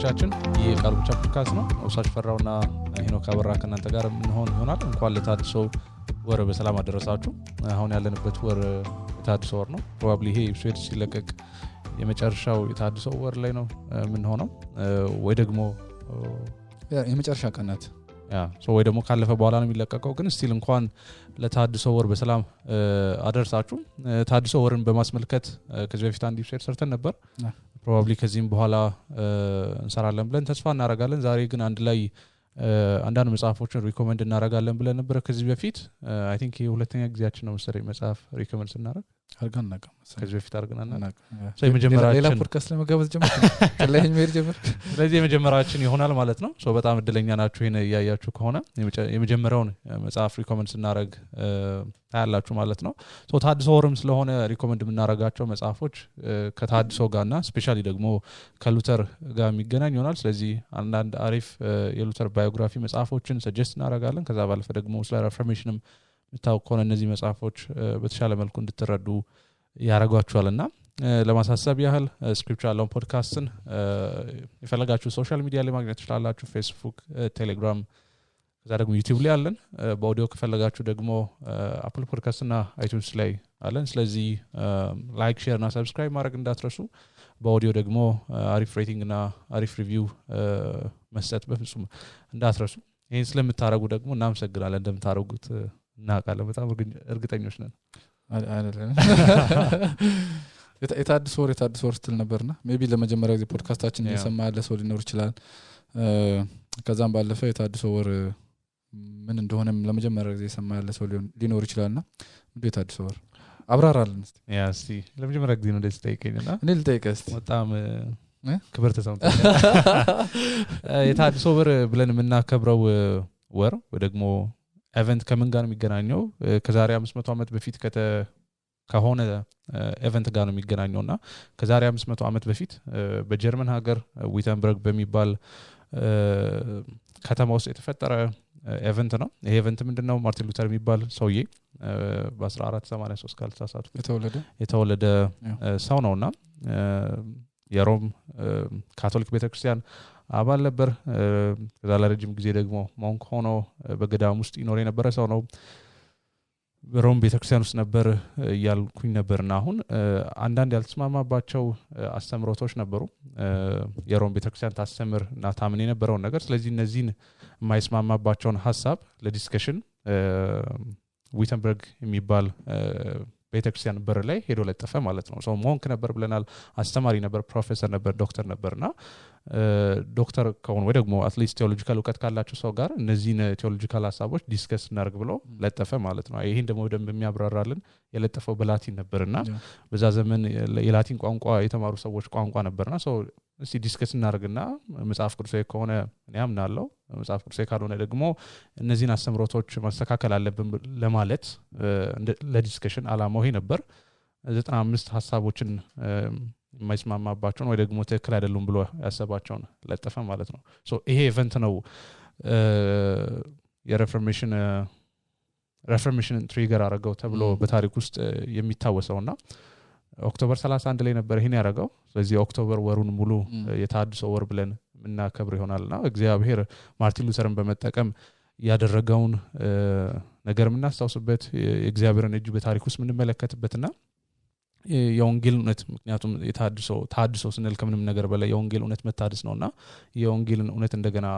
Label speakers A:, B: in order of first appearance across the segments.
A: አድማጮቻችን የቃል ብቻ ፖድካስት ነው ወሳሽ ፈራውና ሄኖክ አበራ ከናንተ ጋር እንሆን ይሆናል እንኳን ለታድሶ ወር በሰላም አደረሳችሁ አሁን ያለንበት ወር የታድሶ ወር ነው ፕሮባብሊ ይሄ ኤፒሶድ ሲለቀቅ የመጨረሻው የታድሶ ወር ላይ ነው ምን ሆነው ወይ ደግሞ
B: የመጨረሻ ቀናት
A: ወይ ደግሞ ካለፈ በኋላ ነው የሚለቀቀው ግን ስቲል እንኳን ለታድሶ ወር በሰላም አደረሳችሁ ታድሶ ወርን በማስመልከት ከዚህ በፊት አንድ ኤፒሶድ ሰርተን ነበር probably ከዚህም በኋላ እንሰራለን ብለን ተስፋ እናደርጋለን ዛሬ ግን አንድ ላይ አንዳንድ መጽሐፎችን ሪኮመንድ እናደርጋለን ብለን ነበር ከዚህ በፊት I think የሁለተኛ ጊዜያችን ነው መሰለኝ መጽሐፍ ሪኮመንድ እናደርግ
B: አርጋናቀ
A: ከዚህ በፊት አርጋናና so የመጀመሪያችን
B: ሌላ ፖድካስት ለመጋበዝ ጀመር ከላይ ሜር ጀመር
A: ስለዚህ የመጀመሪያችን ይሆናል ማለት ነው so በጣም እድለኛ ናችሁ ይሄን ያያያችሁ ከሆነ የመጀመሪያውን መጽሐፍ ሪኮመንድ እናደርግ ታያላችሁ ማለት ነው so ታድሶ ወርም ስለሆነ ሪኮመንድ የምናደርጋቸው መጽሐፎች ከታድሶ ጋርና ስፔሻሊ ደግሞ ከሉተር ጋር የሚገናኝ ይሆናል ስለዚህ አንዳንድ አሪፍ የሉተር ባዮግራፊ መጽሐፎችን ሰጀስት እናደርጋለን ከዛ ባለፈ ደግሞ ስለ ሪፎርሜሽንም ምታውቁ እነዚህ መጽሐፎች በተሻለ መልኩ እንድትረዱ ያረጋችኋልና ለማሳሰብ ያህል ስክሪፕቹራል ፖድካስትን የፈለጋችሁ ሶሻል ሚዲያ ላይ ማግኘት ትችላላችሁ ፌስቡክ ቴሌግራም ከዛ ደግሞ ዩቲዩብ ላይ አለን በኦዲዮ ከፈለጋችሁ ደግሞ አፕል ፖድካስት እና አይቲዩንስ ላይ አለን ስለዚህ ላይክ ሼር እና ሰብስክራይብ ማድረግ እንዳትረሱ በኦዲዮ ደግሞ አሪፍ ሬቲንግ እና አሪፍ ሪቪው መስጠት በፍጹም እንዳትረሱ ይሄን ስለምታረጉ ደግሞ እናመሰግናለን እንደምታረጉት እናቃለን በጣም እርግጠኞች ነን
B: አይደለም የታድሶ ወር ስትል ነበርና ሜቢ ለመጀመሪያ ጊዜ ፖድካስታችን እየሰማ ያለ ሰው ሊኖር ይችላል ከዛም ባለፈ የታድሶ ወር ምን እንደሆነም ለመጀመሪያ ጊዜ የሰማ ያለ ሰው ሊኖር ይችላልና ምንድነው የታድሶ ወር አብራራልን እስቲ
A: እስቲ ለመጀመሪያ ጊዜ ነው እንደዚህ ጠይቀኝና
B: እኔ ልጠይቅህ እስቲ
A: በጣም ክብር ተሰምቶኛል የታድሶ ወር ብለን የምናከብረው ወር ወይ ደግሞ ኢቨንት ከምን ጋር ነው የሚገናኘው ከዛሬ 500 ዓመት በፊት ከሆነ ኢቨንት ጋር ነው የሚገናኘውና ከዛሬ 500 ዓመት በፊት በጀርመን ሀገር ዊተንበርግ በሚባል ከተማ ውስጥ የተፈጠረ ኢቨንት ነው ይሄ ኢቨንት ምንድነው ማርቲን ሉተር የሚባል ሰውዬ በ1483 ካልተሳሳቱ የተወለደ ሰው ነውና የሮም ካቶሊክ ቤተክርስቲያን አባል ነበር ከዛ ለረጅም ጊዜ ደግሞ ሞንክ ሆኖ በገዳም ውስጥ ይኖር የነበረ ሰው ነው በሮም ቤተክርስቲያን ውስጥ ነበር ያልኩኝ ነበርና አሁን አንዳንድ ያልተስማማባቸው አስተምሮቶች ነበሩ የሮም ቤተክርስቲያን ታስተምር እና ታምን የነበረው ነገር ስለዚህ እነዚህን የማይስማማባቸውን ሐሳብ ለዲስከሽን ዊተንበርግ የሚባል ቤተክርስቲያን በር ላይ ሄዶ ለጠፈ ማለት ነው ሶ ሞንክ ነበር ብለናል አስተማሪ ነበር ፕሮፌሰር ነበር ዶክተር ነበርና ዶክተር ከሆነ ወይ ደግሞ አትሊስት ቴዎሎጂካል ዕውቀት ካላቸው ሰው ጋር እነዚህን ቴዎሎጂካል ሐሳቦች ዲስከስ እናርግ ብሎ ለጠፈ ማለት ነው ይሄን ደግሞ ደም የሚያብራራልን የለጠፈው በላቲን ነበርና በዛ ዘመን የላቲን ቋንቋ የተማሩ ሰዎች ቋንቋ ነበርና ሶ እስቲ ዲስከስ እናርግና መጽሐፍ ቅዱሳዊ ከሆነ እኔ አምናለሁ መጽሐፍ ቅዱሳዊ ካልሆነ ደግሞ እነዚህን አስተምሮቶች ማስተካከል አለብን ለማለት ለዲስከሽን አላማው ይሄ ነበር 95 ሐሳቦችን የማይስማማባቸውን ወይ ደግሞ ትክክል አይደሉም ብሎ ያሰባቸውን ለጠፈ ማለት ነው ሶ ይሄ ኢቨንት ነው የሪፎርሜሽን ትሪገር አረጋው ተብሎ በታሪክ ውስጥ የሚታወሰውና ኦክቶበር 31 ላይ ነበር ይሄን ያረጋው ስለዚህ ኦክቶበር ወሩን ሙሉ የታድሶ ወር ብለን እናከብር ይሆናልና እግዚአብሔር ማርቲን ሉተርን በመጠቀም ያደረገውን ነገር ምናስተውስበት የእግዚአብሔርን እጅ በታሪክ ውስጥ ምንመለከትበትና የወንጌል እውነት ምክንያቱም ታድሶ ስንል ከምንም ነገር በላይ የወንጌል እውነት መታደስ ነውና የወንጌልን እውነት እንደገና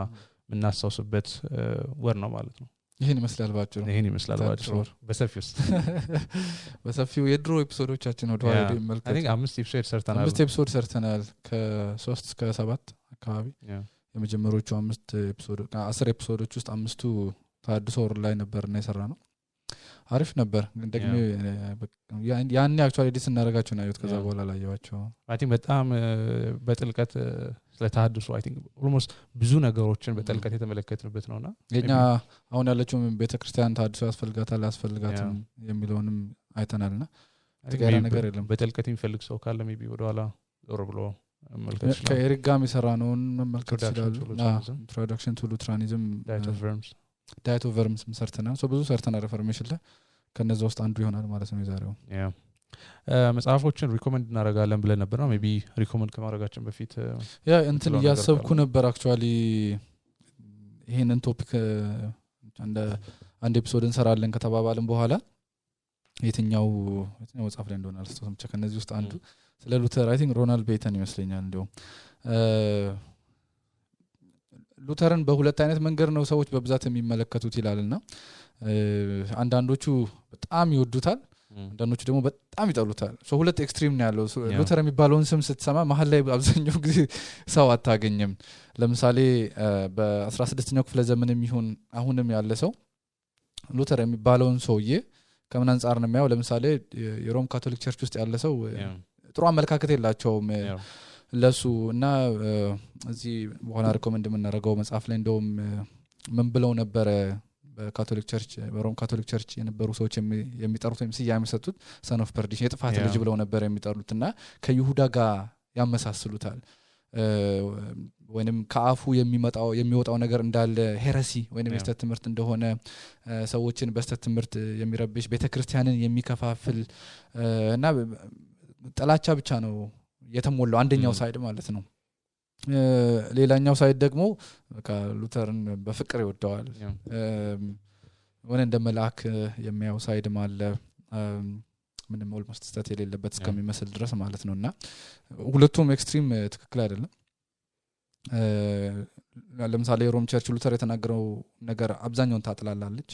A: ምናስተውስበት ወር ነው ማለት ነው
B: ይሄን ይመስላል ባጭሩ በሰፊው የድሮ ኤፒሶዶቻችን ወደ ኋላ መልከት
A: I think 5
B: ኤፒሶድ ሰርተናል ከ3 እስከ 7 አካባቢ የመጀመሪያዎቹ 5 ኤፒሶድ 10 ኤፒሶዶች ውስጥ 5ቱ ታድሶ ወር ላይ ነበርና የሰራነው አሪፍ ነበር ግን ደግሞ ያን አክቹአሊ ዲስ እናረጋቸው ነው ከዛ በኋላ ላየዋቸው
A: I think በጣም በጥልቀት ስለታድሶ I think almost ብዙ ነገሮችን በጥልቀት የተመለከትንበት ነውና
B: የኛ አሁን ያለችው ቤተክርስቲያን ታድሶ ያስፈልጋትም የሚለውንም አይተናልና ተጋራ ነገር የለም
A: በጥልቀት የሚፈልግ ሰው ካለ ሜቢ ወደኋላ ዞር ብሎ መልከት ይችላል
B: ከኤሪክ ጋር የሚሰራነውን መመልከት ይችላል ኢንትሮዳክሽን ቱ ሉትራኒዝም ዳይት ኦፍ ቨርምስ ሰርተናል ብዙ ሰርተናል ሪፎርሜሽን ላይ ከነዛ ውስጥ አንዱ ይሆናል ማለት ነው የዛሬው
A: መጽሐፎችን ሪኮመንድ እናደርጋለን ብለን ነበር ነው ሜቢ ሪኮመንድ ከማድረጋችን በፊት
B: ያ እንትን ያሰብኩ ነበር አክቹአሊ ይሄንን ቶፒክ አንድ ኤፒሶድ እንሰራለን ከተባባልን በኋላ የትኛው መጽሐፍ ላይ እንደሆነ አልስተውም ብቻ ከነዚህ ውስጥ አንዱ ስለ ሉተር አይ ቲንክ ሮናልድ ቤተን ይመስለኛል እንደው ሉተርን በሁለት አይነት መንገድ ነው ሰዎች በብዛት የሚመለከቱት ይላልና አንዳንዶቹ በጣም ይወዱታል አንዳንዶቹ ደግሞ በጣም ይጠሉታል ሁለት ኤክስትሪም ነው ያለው ሉተር የሚባለውን ስም ስትሰማ መሀል ላይ አብዛኛው ጊዜ ሰው አታገኝም ለምሳሌ በ16ኛው ክፍለ ዘመንም ይሁን አሁንም ያለ ሰው ሉተር የሚባለውን ሰውዬ ከምን አንፃር ነው የሚያው ለምሳሌ የሮም ካቶሊክ ቸርች ውስጥ ያለ ሰው ጥሩ አመለካከት የላቸውም ለሱ እና እዚህ በኋላ ሪኮመንድ የምናደርገው መጽሐፍ ላይ እንደውም ምን ብለው ነበር በካቶሊክ ቸርች በሮም ካቶሊክ ቸርች የነበሩ ሰዎች የሚጠሩት ወይም ስያሜ የሚሰጡት ሰን ኦፍ ፐርዲሽን የጥፋት ልጅ ብለው ነበር የሚጠሩትና ከይሁዳ ጋር ያመሳስሉታል ወይንም ከአፉ የሚወጣው ነገር እንዳለ ሄረሲ ወይንም የስተት ትምህርት እንደሆነ ሰዎችን በስተት ትምህርት የሚረብሽ ቤተክርስቲያንን የሚከፋፍል እና ጥላቻ ብቻ ነው የተሞላው አንደኛው ሳይድ ማለት ነው ሌላኛው ሳይድ ደግሞ በቃ ሉተርን በፍቅር ይወደዋል ወነ እንደ መልአክ የሚያው ሳይድ ማለ ምንም ኦልሞስት ስታት የሌለበት እስከሚመስል ድረስ ማለት ነውና ሁለቱም ኤክስትሪም ትክክል አይደለም ለምሳሌ ሮም ቸርች ሉተር የተናገረው ነገር አብዛኛውን ታጥላላለች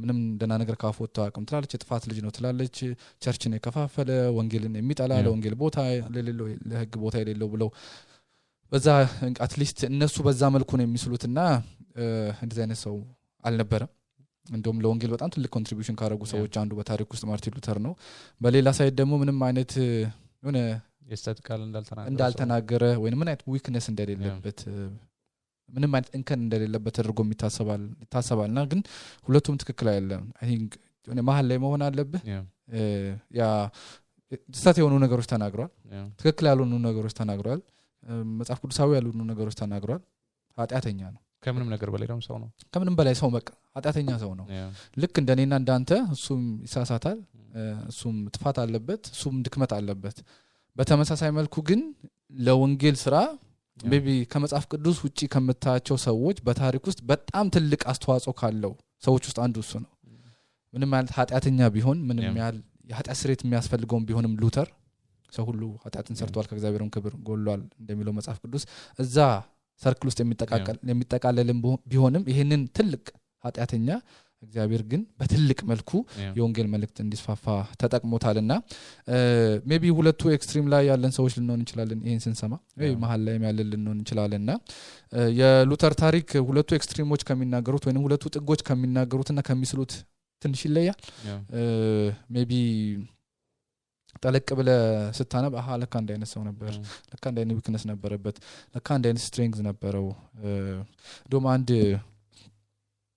B: ምንም እንደና ነገር ካፎት ታቀም ትላለች የጥፋት ልጅ ነው ትላለች ቸርችን የከፋፈለ ወንጌልን የሚጠላ ለወንጌል ቦታ ለሌለው ለህግ ቦታ የሌለው ብለው በዛ አትሊስት እነሱ በዛ መልኩ ነው የሚስሉትና እንደዚህ አይነት ሰው አልነበረም እንደውም ለወንጌል በጣም ትልቅ ኮንትሪቢዩሽን ካደረጉ ሰዎች አንዱ በታሪክ ውስጥ ማርቲን ሉተር ነው በሌላ ሳይድ ደግሞ ምንም አይነት የሆነ
A: የስተትካል
B: እንዳልተናገረ ወይ ምን አይነት ዊክነስ እንደሌለበት ምንም አይነት እንከን እንደሌለበት ተደርጎ ይታሰባልና ግን ሁለቱም ትክክል አይደለም አይ ቲንክ የሆነ መሀል ላይ መሆን አለበት ያ ስህተት የሆኑ ነገሮች ተናግሯል ትክክል ያልሆኑ ነገሮች ተናግሯል መጽሐፍ ቅዱሳዊ ያልሆኑ ነገሮች ተናግሯል ኃጢአተኛ ነው
A: ከምንም ነገር በላይ ደግሞ ሰው ነው
B: ከምንም በላይ ሰው በቃ ኃጢአተኛ ሰው ነው ልክ እንደኔና እንዳንተ እሱም ይሳሳታል እሱም ጥፋት አለበት እሱም ድክመት አለበት በተመሳሳይ መልኩ ግን ለወንጌል ስራ ሜቢ ከመጽሐፍ ቅዱስ ውጪ ከመታቸው ሰዎች በታሪክ ውስጥ በጣም ትልቅ አስተዋጽኦ ካለው ሰዎች ውስጥ አንዱ እሱ ነው ምንም ማለት ኃጢአተኛ ቢሆን ምንም ያህል የኃጢአት ስርየት የሚያስፈልገው ቢሆንም ሉተር ሰው ሁሉ ኃጢአትን ሰርቷል ከእግዚአብሔርም ክብር ጎሏል እንደሚለው መጽሐፍ ቅዱስ እዛ ሰርክል ውስጥ የሚጠቃለልም ቢሆንም ይሄንን ትልቅ ኃጢአተኛ እግዚአብሔር ግን በትልቅ መልኩ የወንጌል መልእክት እንዲስፋፋ ተጠቅሞታልና ሜቢ ሁለቱ ኤክስትሪም ላይ ያለን ሰዎች ልንሆን እንችላለን ይሄን ስንሰማ ወይ መሃል ላይ ያለን ልንሆን እንችላለንና የሉተር ታሪክ ሁለቱ ኤክስትሪሞች ከሚናገሩት ወይንም ሁለቱ ጥጎች ከሚናገሩትና ከሚስሉት ትንሽ ይለያል ሜቢ ጠለቅ ብለ ስታነብ ለካ አንድ አይነት ሰው ነበር ለካ አንድ አይነት ዊክነስ ነበረበት ለካ አንድ አይነት ስትሬንግዝ ነበረው ዶም አንድ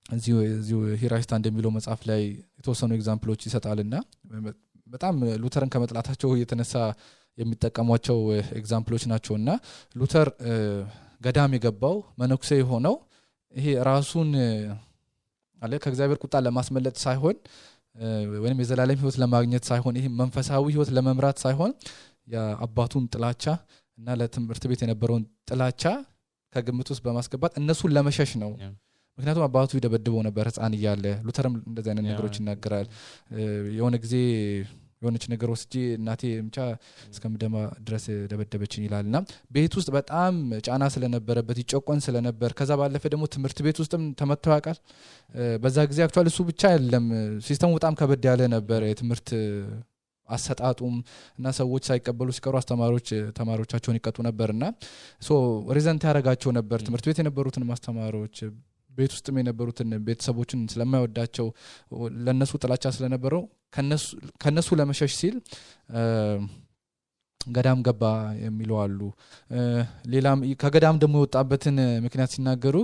B: እዚሁ ሂራይስታ እንደሚለው መጽሐፍ ላይ የተወሰኑ ኤግዛምፕሎች ይሰጣልና በጣም ሉተርን ከመጥላታቸው የተነሳ የሚጠቀሟቸው ኤግዛምፕሎች ናቸውና ሉተር ገዳም የገባው መነኩሴ የሆነው ይሄ ራሱን አለ ከእግዚአብሔር ቁጣ ለማስመለጥ ሳይሆን ወይንም የዘላለም ህይወት ለማግኘት ሳይሆን ይሄ መንፈሳዊ ህይወት ለመምራት ሳይሆን የአባቱን ጥላቻ እና ለትምህርት ቤት የነበረውን ጥላቻ ከግምት ውስጥ በማስገባት እነሱን ለመሸሽ ነው ምክንያቱም አባቱ ይደበድበው ነበር ህፃን እያለ ሉተርም እንደዚህ አይነት ነገሮች ይናገራል የሆነ ጊዜ የሆነች ነገር ወስጂ እናቴ ምቻ እስከምደማ ድረስ ደበደበችኝ ይላልና ቤት ውስጥ በጣም ጫና ስለነበረበት ይጨቆን ስለነበር ከዛ ባለፈ ደግሞ ትምህርት ቤት ውስጥም ተመተው ያውቃል በዛ ጊዜ አክቹአሊ እሱ ብቻ አይደለም ሲስተሙ በጣም ከበድ ያለ ነበር የትምህርት አሰጣጡም እና ሰዎች ሳይቀበሉ ሲቀሩ አስተማሪዎች ተማሪዎቻቸውን ይቀጡ ነበርና ሶ ሪዘንት ያረጋቸው ነበር ትምህርት ቤት የነበሩትን ማስተማሪዎች ቤት ውስጥም የነበሩትን ቤተሰቦችን ስለማይወዳቸው ለነሱ ጥላቻ ስለነበረው ከነሱ ለመሸሽ ሲል ገዳም ገባ የሚሉ አሉ ሌላም ከገዳም ደግሞ የወጣበትን ምክንያት ሲናገሩ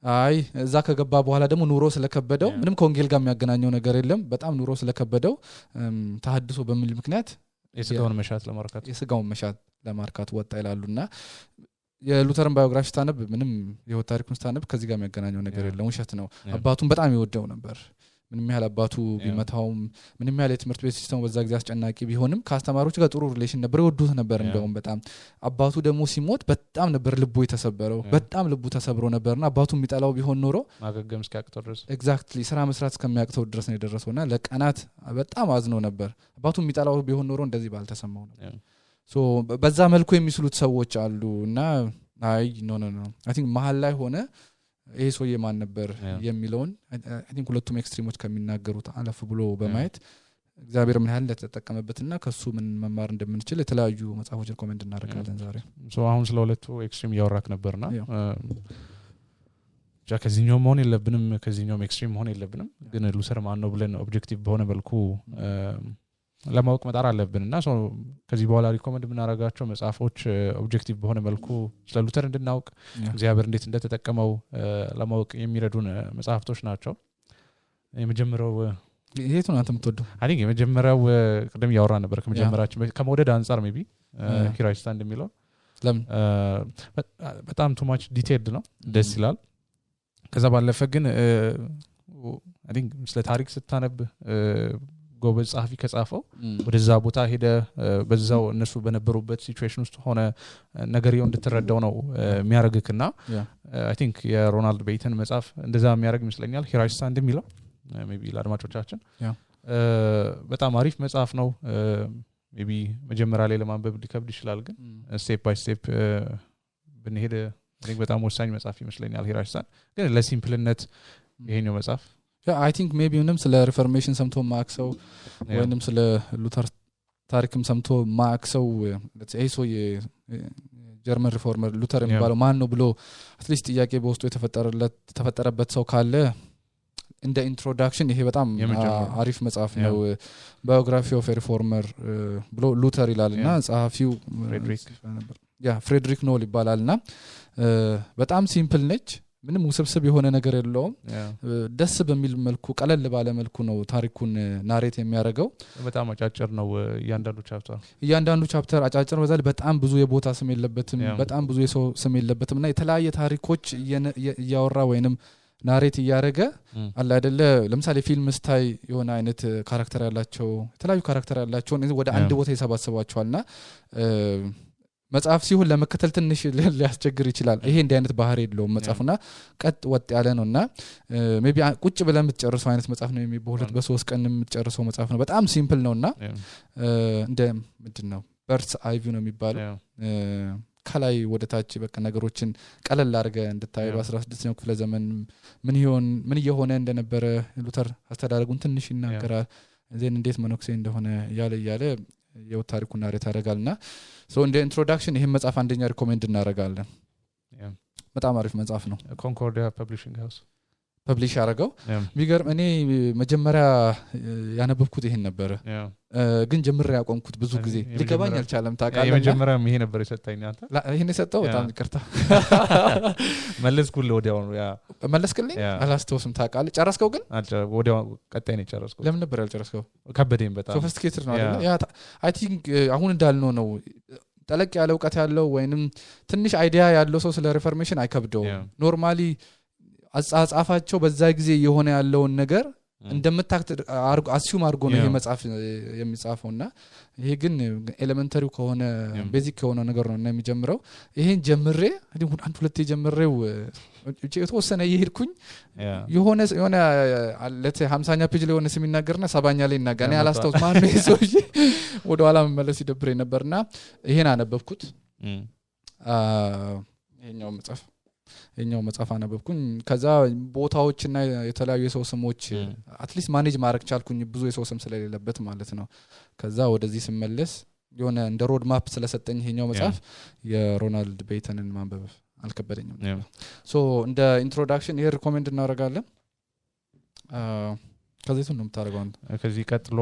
B: አይ እዛ ከገባ በኋላ ደግሞ ኑሮ ስለከበደው ምንም ከወንጌል ጋር የሚያገናኘው ነገር የለም በጣም ኑሮ ስለከበደው ተሐድሶ በሚል ምክንያት
A: የስጋውን መሻት ለማርካት ወጣ ይላሉና የሉተርን ባዮግራፊ ስታነብ ምንም የህይወት ታሪኩን ስታነብ ከዚህ ጋር የሚያገናኘው ነገር የለም ውሸት ነው አባቱን በጣም ይወደው ነበር
B: ምንም ያህል አባቱ ቢመታውም ምንም ያህል የትምህርት ቤት ሲስተሙ በዛ ጊዜ አስጨናቂ ቢሆንም ከአስተማሪዎች ጋር ጥሩ ሪሌሽን ነበር ይወዱት ነበር እንደውም በጣም አባቱ ደግሞ ሲሞት በጣም ነበር ልቡ የተሰበረው በጣም ልቡ ተሰብሮ ነበርና አባቱ የሚጠላው ቢሆን ኖሮ
A: ማገገም እስኪያቅተው ድረስ
B: ኤግዛክትሊ ስራ መስራት እስከሚያቅተው ድረስ ነው የደረሰውና ለቀናት በጣም አዝኖ ነበር አባቱ የሚጠላው ቢሆን ኖሮ እንደዚህ ባልተሰማው ነበር ሶ በዛ መልኩ የሚስሉት ሰዎች አሉና አይ ኖ አይ ቲንክ መሃል ላይ ሆነ ይሄ ሰውዬ ማን ነበር የሚለውን አይ ቲንክ ሁለቱም ኤክስትሪሞች ከሚናገሩት አለፍ ብሎ በማየት እግዚአብሔር ምን ያህል እንደተጠቀመበትና ከሱ ምን መማር እንደምንችል የተለያዩ መጽሐፎችን ኮሜንት እናደርጋለን ዛሬ
A: ሶ አሁን ስለ ሁለቱ ኤክስትሪም ያወራክ ነበርና ከዚህኛው መሆን የለብንም ከዚህኛው ኤክስትሪም መሆን የለብንም ግን ሉተር ማን ነው ብለን ኦብጀክቲቭ በሆነ መልኩ ለማወቅ መጣር አለብንና ሶ ከዚህ በኋላ ሪኮመንድ የምናደርጋቸው መጽሐፎች ኦብጀክቲቭ በሆነ መልኩ ስለ ሉተር እንድናውቅ እግዚአብሔር እንዴት እንደተጠቀመው ለማወቅ የሚረዱን መጽሐፍቶች ናቸው የመጀመሪያው
B: የቱን አንተ የምትወደው
A: አይ ቲንክ የመጀመሪያው ቀደም ያወራ ነበር ከመጀመሪያችን ከመውደድ አንፃር ሜቢ ሂራይስታ እንደሚለው
B: ለምን
A: በጣም ቱ ማች ዲቴይልድ ነው ደስ ይላል ከዛ ባለፈ ግን አይ ቲንክ ስለ ታሪክ ስታነብ ጎበዝ ጻፊ ከጻፈው ወደዛ ቦታ ሄደ በዛው እነሱ በነበሩበት ሲቹዌሽን ውስጥ ሆነ ነገርየው እንድትረዳው ነው የሚያረግክና አይ ቲንክ የሮናልድ ቤይተን መጽሐፍ እንደዛ የሚያረግ ይመስለኛል ሂራይስታ እንደሚለው ሜቢ ለአድማጮቻችን በጣም አሪፍ መጽሐፍ ነው ሜቢ መጀመሪያ ላይ ለማንበብ ሊከብድ ይችላል ግን ስቴፕ ባይ ስቴፕ ብንሄድ አይ ቲንክ በጣም ወሳኝ መጽሐፍ ይመስለኛል ሂራይስታ ግን ለሲምፕልነት ይሄኛው መጽሐፍ
B: I think maybe ምንም ስለ ሪፎርሜሽን ሰምቶ ማክሰው ወይንም ስለ ሉተር ታሪክም ሰምቶ ማክሰው ለዚህ ሰው የጀርመን ሪፎርመር ሉተር የሚባለው ማን ነው ብሎ አትሊስት ጥያቄ በውስጡ የተፈጠረበት ሰው ካለ እንደ ኢንትሮዳክሽን ይሄ በጣም አሪፍ መጽሐፍ ነው ባዮግራፊ ኦፍ ሪፎርመር ብሎ ሉተር ይላልና ጸሐፊው ፍሬድሪክ ኖል ይባላልና በጣም ሲምፕል ነች ምንም ውስብስብ የሆነ ነገር የለውም ደስ በሚል መልኩ ቀለል ባለ መልኩ ነው ታሪኩን ናሬት የሚያደርገው
A: በጣም አጫጭር ነው
B: እያንዳንዱ ቻፕተር አጫጭር በዛል በጣም ብዙ የቦታ ስም የለበትም በጣም ብዙ የሰው ስም የለበትምና የተለያየ ታሪኮች እያወራ ወይንም ናሬት እያደረገ አለ አይደለ ለምሳሌ ፊልም ስታይ የሆነ አይነት ካራክተር ያላቸው የተለያዩ ካራክተር ያላቸው ወደ አንድ ቦታ ይሰባስባቸዋልና መጽሐፍ ሲሆን ለመከተል ትንሽ ሊያስቸግር ይችላል ይሄ እንደ አይነት ባህሪ የለውም መጽሐፉና ቀጥ ወጥ ያለ ነውና ሜቢ ቁጭ ብለን የምትጨርሰው አይነት መጽሐፍ ነው በሁለት በሶስት ቀን የምትጨርሰው መጽሐፍ ነው በጣም ሲምፕል ነውና እንደ ምንድነው በርስ አይቪ ነው የሚባለው ከላይ ወደ ታች በቃ ነገሮችን ቀለል አድርገ እንድታዩ 16ኛው ክፍለ ዘመን ምን እየሆነ እንደነበረ ሉተር አስተዳደጉን ትንሽ ይናገራል ዘን እንዴት መኖክሴ እንደሆነ ያለ የታሪኩን ናሬት ያደርጋልና ሶ እንደ ኢንትሮዳክሽን ይሄን መጽሐፍ አንደኛ ሪኮሜንድ እናደርጋለን በጣም አሪፍ መጽሐፍ ነው
A: ኮንኮርዲያ ፐብሊሺንግ ሃውስ
B: ፐብሊሽ ያደረገው ቢገርም እኔ መጀመሪያ ያነበብኩት ይሄን ነበር ግን ጀምሬ ያቆምኩት ብዙ ጊዜ ሊገባኝ አልቻለም ታውቃለህ
A: የመጀመሪያ ይሄ ነበር የሰጠኝ አንተ
B: ይሄን የሰጠው በጣም ይቅርታ
A: መለስኩልህ ወዲያው ያ
B: መለስክልኝ አላስተውስም ታውቃለህ ጨረስከው ግን
A: ወዲያው ቀጣይ ነው ጨረስኩት
B: ለምን ነበር ያልጨረስከው
A: ከበደኝ በጣም
B: ሶፊስቲኬትድ ነው አይደል ያ አይ ቲንክ አሁን እንዳልነው ነው ጠለቅ ያለ ዕውቀት ያለው ወይንም ትንሽ አይዲያ ያለው ሰው ስለ ሪፎርሜሽን አይከብደው ኖርማሊ አጻጻፋቸው በዛ ጊዜ የሆነ ያለውን ነገር እንደምታክት አሲዩም አድርጎ ነው ይሄ መጽሐፍ የሚጻፈውና ይሄ ግን ኤሌመንተሪው ከሆነ ቤዚክ ከሆነ ነገር ነው እና የሚጀምረው ይሄን ጀምሬ አንድ ሁለቴ ጀምሬው የተወሰነ ይሄድኩኝ የሆነ አለተ 50ኛ ፔጅ ላይ ሆነ ሲናገርና 70ኛ ላይ ይናገራል እኔ አላስታውስ ማን ነው ይሶ ወደ ኋላ መመለስ ይደብረኝ ነበርና ይሄን አነበብኩት ይሄኛው መጽሐፍ አነበብኩኝ ከዛ ቦታዎችና የተለያዩ የሰው ስሞች አትሊስት ማኔጅ ማድረግ ቻልኩኝ ብዙ የሰው ስም ስለሌለበት ማለት ነው ከዛ ወደዚህ ስመለስ የሆነ እንደ ሮድ ማፕ ስለሰጠኝ ይሄኛው መጽሐፍ የሮናልድ ቤይተንን ማንበብ አልከበደኝም ሶ እንደ ኢንትሮዳክሽን ይሄ ሪኮሜንድ እናደርጋለን ከዚህ ነው የምታደርገው
A: ከዚህ ቀጥሎ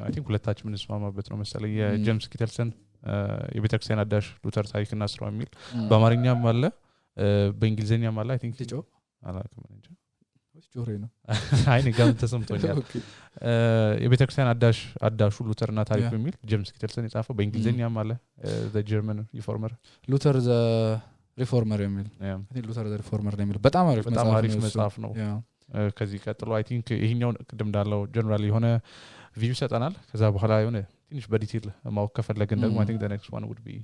A: አይ ቲንክ ሁለታችን እንስማማበት ነው መሰለኝ የጄምስ ኪተልሰን የቤተክርስቲያን አዳሽ ሉተር ታሪክና ስራው የሚል በአማርኛም አለ በእንግሊዘኛ ማለት አይ ቲንክ
B: ልጆ
A: አላውቅም እንጂ
B: ጆሬ ነው
A: አይ ንጋም ተሰምቶኛል የቤተክርስቲያን አዳሹ ሉተርና ታሪክ በሚል ጄምስ ኪተልሰን የጻፈው በእንግሊዘኛ ማለት the German reformer
B: ሉተር ዘ ሪፎርመር የሚል ሉተር ዘ ሪፎርመር የሚል በጣም አሪፍ መጽሐፍ ነው
A: ከዚህ ቀጥሎ አይ ቲንክ ይሄኛው ቅድም እንዳለው ጀነራሊ የሆነ ቪው ሰጠናል ከዛ በኋላ የሆነ ትንሽ በዲቴል ማወቅ ከፈለግን ደግሞ አይ ቲንክ the next one would be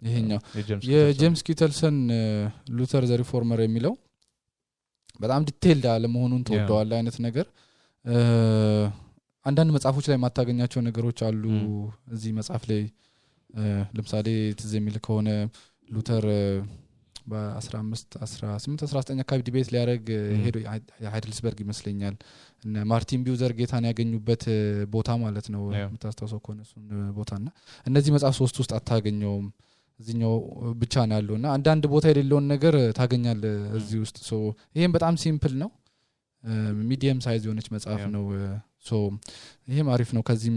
B: ይሄኛው የጄምስ ኪተልሰን ሉተር ዘ ሪፎርመር የሚለው በጣም ዲቴይልድ አለ መሆኑን ተወደዋል አይነት ነገር አንዳንድ መጽሐፎች ላይ ማታገኛቸው ነገሮች አሉ እዚህ መጽሐፍ ላይ ለምሳሌ ትዝ የሚል ከሆነ ሉተር በ15 18 19 አካባቢ ዲቤት ሊያደርግ ሄዶ ሃይድልስበርግ ይመስለኛል እና ማርቲን ቢውዘር ጌታን ያገኙበት ቦታ ማለት ነው የምታስተውሰው ከሆነ እሱን ቦታና እነዚህ መጽሐፍ ሶስት ውስጥ አታገኘውም እዚህኛው ብቻ ነው ያለውና አንዳንድ ቦታ የሌለውን ነገር ታገኛለህ እዚህ ውስጥ ሶ ይሄም በጣም ሲምፕል ነው ሚዲየም ሳይዝ የሆነች መጽሐፍ ነው ሶ ይሄም አሪፍ ነው ከዚህም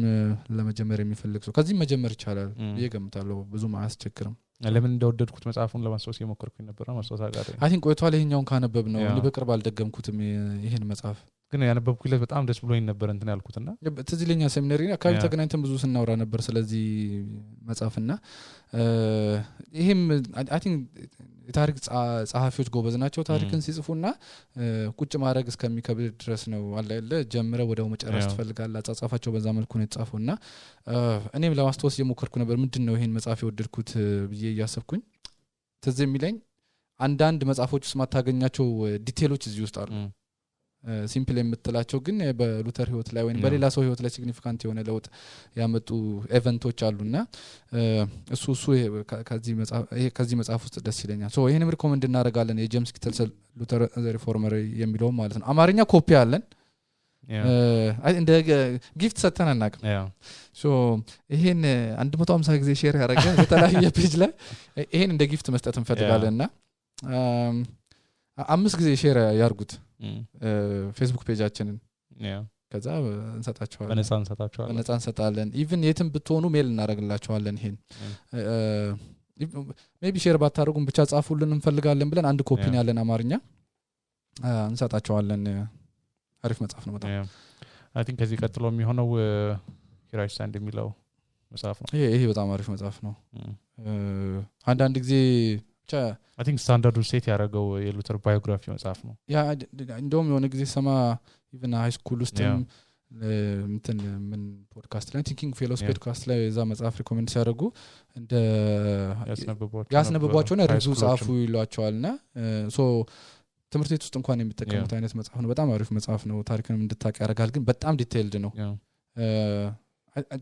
B: ለመጀመር የሚፈልግ ሰው ከዚህም መጀመር ይቻላል ይገምታለሁ ብዙም አያስቸግርም
A: ለምን እንደወደድኩት መጽሐፉን ለማስታወስ የሞከርኩኝ ነበር ነው ማስታወስ አጋር
B: አይ ቲንክ ቆይቷል ይሄኛውን ካነበብ ነው እኔ በቅርብ አልደገምኩትም ይሄን መጽሐፍ
A: ግን ያነበብኩለት በጣም ደስ ብሎኝ ነበር እንትን ያልኩትና
B: ትዝ ይለኛል ሴሚናሪ አካባቢ ተገናኝተን ብዙ ስናወራ ነበር ስለዚህ መጽሐፍና ይሄም አይ ቲንክ የታሪክ ጸሐፊዎች ጎበዝ ናቸው ታሪክን ሲጽፉና ቁጭ ማድረግ እስከሚከብድ ድረስ ነው አለ ጀምረ ወደው መጨረስ ትፈልጋለህ አጻጻፋቸው በዛ መልኩ ነው የተጻፈውና እኔም ለማስተዋወስ የሞከርኩ ነበር ምንድነው ይሄን መጽሐፍ የወደድኩት ብዬ ያሰብኩኝ ትዝ የሚለኝ አንዳንድ መጽሐፎች ውስጥ ማታገኛቸው ዲቴሎች እዚህ ውስጥ አሉ ሲምፕል የምትላቸው ግን በሉተር ህይወት ላይ ወይም በሌላ ሰው ህይወት ላይ ሲግኒፊካንት የሆነ ለውጥ ያመጡ ኢቨንቶች አሉና እሱ ከዚህ መጽሐፍ ውስጥ ደስ ይለኛል ሶ ይሄንም ሪኮመንድ እናደርጋለን የጄምስ ኪተልሰን ሉተር ዘ ሪፎርመር የሚለው ማለት ነው አማርኛ ኮፒ አለን እንደ ጊፍት ሰጥተን አናውቅም ሶ ይሄን 150 ጊዜ ሼር ያደረገ በተለያየ ፔጅ ላይ ይሄን እንደ ጊፍት መስጠት እንፈልጋለንና 5 ጊዜ ሼር ያርጉት ፌስቡክ ፔጃችንን ከዛ እንሰጣቸዋለን እንሰጣለን ኢቭን የትም ብትሆኑ ሜል እናደርግላችኋለን ይሄን ሜቢ ሼር ባታደርጉም ብቻ ጻፉልን እንፈልጋለን ብለን አንድ ኮፒ ያለን አማርኛ እንሰጣቸዋለን አሪፍ መጽሐፍ ነው በጣም
A: አይ ቲንክ ከዚህ ቀጥሎ የሚሆነው ሂራይ ስታንድ የሚለው መጽሐፍ ነው
B: ይሄ በጣም አሪፍ መጽሐፍ ነው አንዳንድ ጊዜ
A: I think standard set ያረጋው የሉተር ባዮግራፊ መጽሐፍ ነው
B: ያ እንደውም የሆነ ጊዜ ሰማ ኢቭን ሃይ ስኩል ውስጥም እንትን ምን ፖድካስት ላይ ቲንኪንግ ፌሎስ ፖድካስት ላይ እዛ መጽሐፍ ሪኮመንድ ሲያደርጉ እንደ ያስነብቧቸውና ሪቪው ጻፉ ይሏቸዋልና ሶ ትምህርት ቤት ውስጥ እንኳን የሚጠቀሙት አይነት መጽሐፍ ነው በጣም አሪፍ መጽሐፍ ነው ታሪክንም እንድታውቅ ያደርጋል ግን በጣም ዲቴይልድ ነው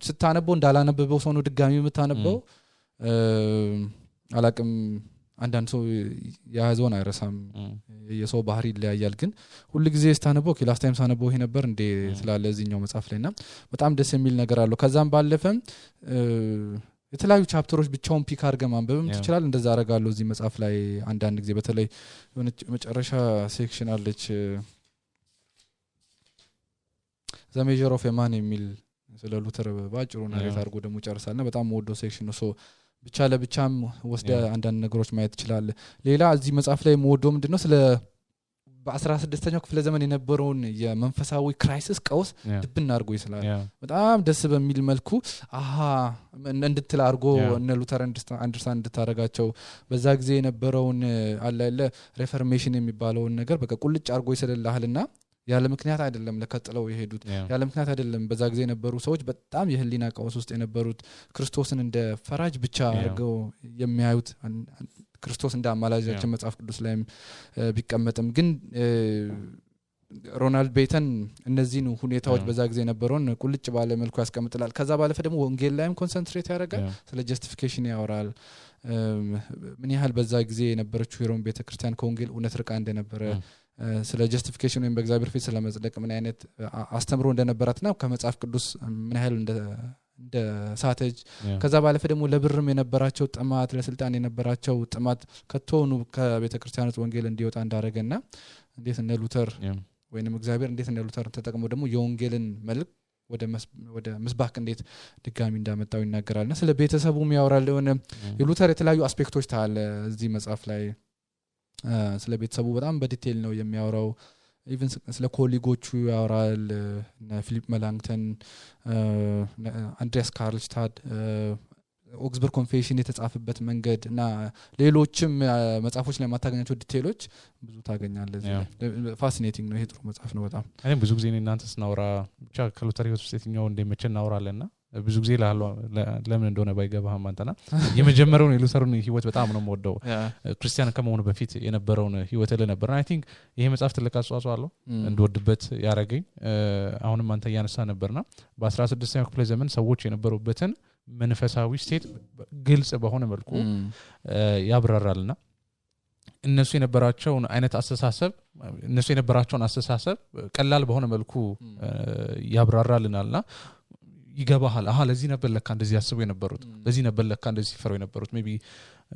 B: ስታነበው እንዳላነበበው ሰው ነው ድጋሚ የምታነበው አላቅም አንዳንድ ሰው ያዘውን አይረሳም የሰው ባህሪ ይለያያል ግን ሁሉ ጊዜ ስታነበው ላስት ታይም ሳነበው ይሄ ነበር እንደ ስላለ እዚህኛው መጽሐፍ ላይና በጣም ደስ የሚል ነገር አለው ከዛም ባለፈም የተለያዩ ቻፕተሮች ብቻውን ፒክ አድርገህ ማንበብም ትችላለህ እንደዛ አደርጋለሁ እዚህ መጽሐፍ ላይ አንዳንድ ጊዜ በተለይ የሆነ መጨረሻ ሴክሽን አለች ዘ ሜጀር ኦፍ ማን የሚል ስለ ሉተር ባጭሩ ናሬት አድርጎ ደግሞ ጨርሳልና በጣም ወዶ ሴክሽን ነው ሶ ብቻ ለብቻም ወስደ አንዳንድ ነገሮች ማየት ይችላል ሌላ እዚህ መጽሐፍ ላይ ሞዶ ምንድነው ስለ በ16ኛው ክፍለ ዘመን የነበረውን የመንፈሳዊ ክራይሲስ ቀውስ ድብና አድርጎ ይስላል በጣም ደስ በሚል መልኩ እንድትል አድርጎ እነ ሉተር አንደርስታንድ እንድታረጋቸው በዛ ጊዜ የነበረውን አለ ሪፎርሜሽን የሚባለውን ነገር በቃ ቁልጭ አድርጎ ይስልልሃልና ያለ ምክንያት አይደለም ለከጥለው የሄዱት ያለ ምክንያት አይደለም በዛ ጊዜ የነበሩ ሰዎች በጣም የህሊና ቀውስ ውስጥ የነበሩት ክርስቶስን እንደ ፈራጅ ብቻ አድርገው የሚያዩት ክርስቶስ እንደ አማላጃችን መጽሐፍ ቅዱስ ላይም ቢቀመጥም ግን ሮናልድ ቤተን እነዚህን ሁኔታዎች በዛ ጊዜ የነበረውን ቁልጭ ባለ መልኩ ያስቀምጥላል ከዛ ባለፈ ደግሞ ወንጌል ላይም ኮንሰንትሬት ያደርጋል ስለ ጀስቲፊኬሽን ያወራል ምን ያህል በዛ ጊዜ የነበረችው የሮም ቤተክርስቲያን ከወንጌል እውነት ርቃ እንደነበረ ስለ ጀስቲፊኬሽን ወይም በእግዚአብሔር ፊት ስለመጽደቅ ምን አይነት አስተምሮ እንደነበራትና ከመጽሐፍ ቅዱስ ምን ያህል እንደ ሳተጅ ከዛ ባለፈ ደግሞ ለብርም የነበራቸው ጥማት ለስልጣን የነበራቸው ጥማት ከተሆኑ ከቤተክርስቲያኖች ወንጌል እንዲወጣ እንዳረጋና እንዴት እነ ሉተር ወይንም እግዚአብሔር እንዴት እነ ሉተር ተጠቅሞ ደግሞ የወንጌልን መልክ ወደ ምስባክ እንዴት ድጋሚ እንዳመጣው ይናገራልና ስለ ቤተሰቡም ያወራል የሉተር የተለያዩ አስፔክቶች ታለ እዚህ መጽሐፍ ላይ ስለ ቤተሰቡ በጣም በዲቴል ነው የሚያወራው ኢቭን ስለ ኮሊጎቹ ያወራል ፊሊፕ መላንግተን አንድሪያስ ካርልስታድ ኦክስበርግ ኮንፌሽን የተጻፈበት መንገድ እና ሌሎችም መጽሐፎች ላይ ማታገኛቸው ዲቴይሎች ብዙ ታገኛለህ ፋሲኔቲንግ ነው ይሄ ጥሩ መጽሐፍ ነው በጣም
A: እኔ ብዙ ጊዜ እናንተ ስናወራ ብቻ ከሉተር ህይወት ውስጥ የትኛው እንደሚመቸን እናወራለንና ብዙ ጊዜ ለምን እንደሆነ ባይገባህም አንተና የመጀመሪያውን የሉተርን ህይወት በጣም ነው የምወደው ክርስቲያን ከመሆኑ በፊት የነበረውን ህይወት ለነበር አይ ቲንክ ይሄ መጽሐፍ ትልቅ አስተዋጽኦ አለው እንደወድበት ያረገኝ አሁንም አንተ ያነሳ ነበርና በ16ኛው ክፍለ ዘመን ሰዎች የነበሩበትን መንፈሳዊ ስቴት ግልጽ በሆነ መልኩ ያብራራልና እነሱ የነበራቸውን አይነት አስተሳሰብ ቀላል በሆነ መልኩ ያብራራልናልና ይገባሃል ለዚህ ነበር ለካ እንደዚህ ያስቡ የነበሩት ለዚህ ነበር ለካ እንደዚህ ሲፈሩ የነበሩት ሜቢ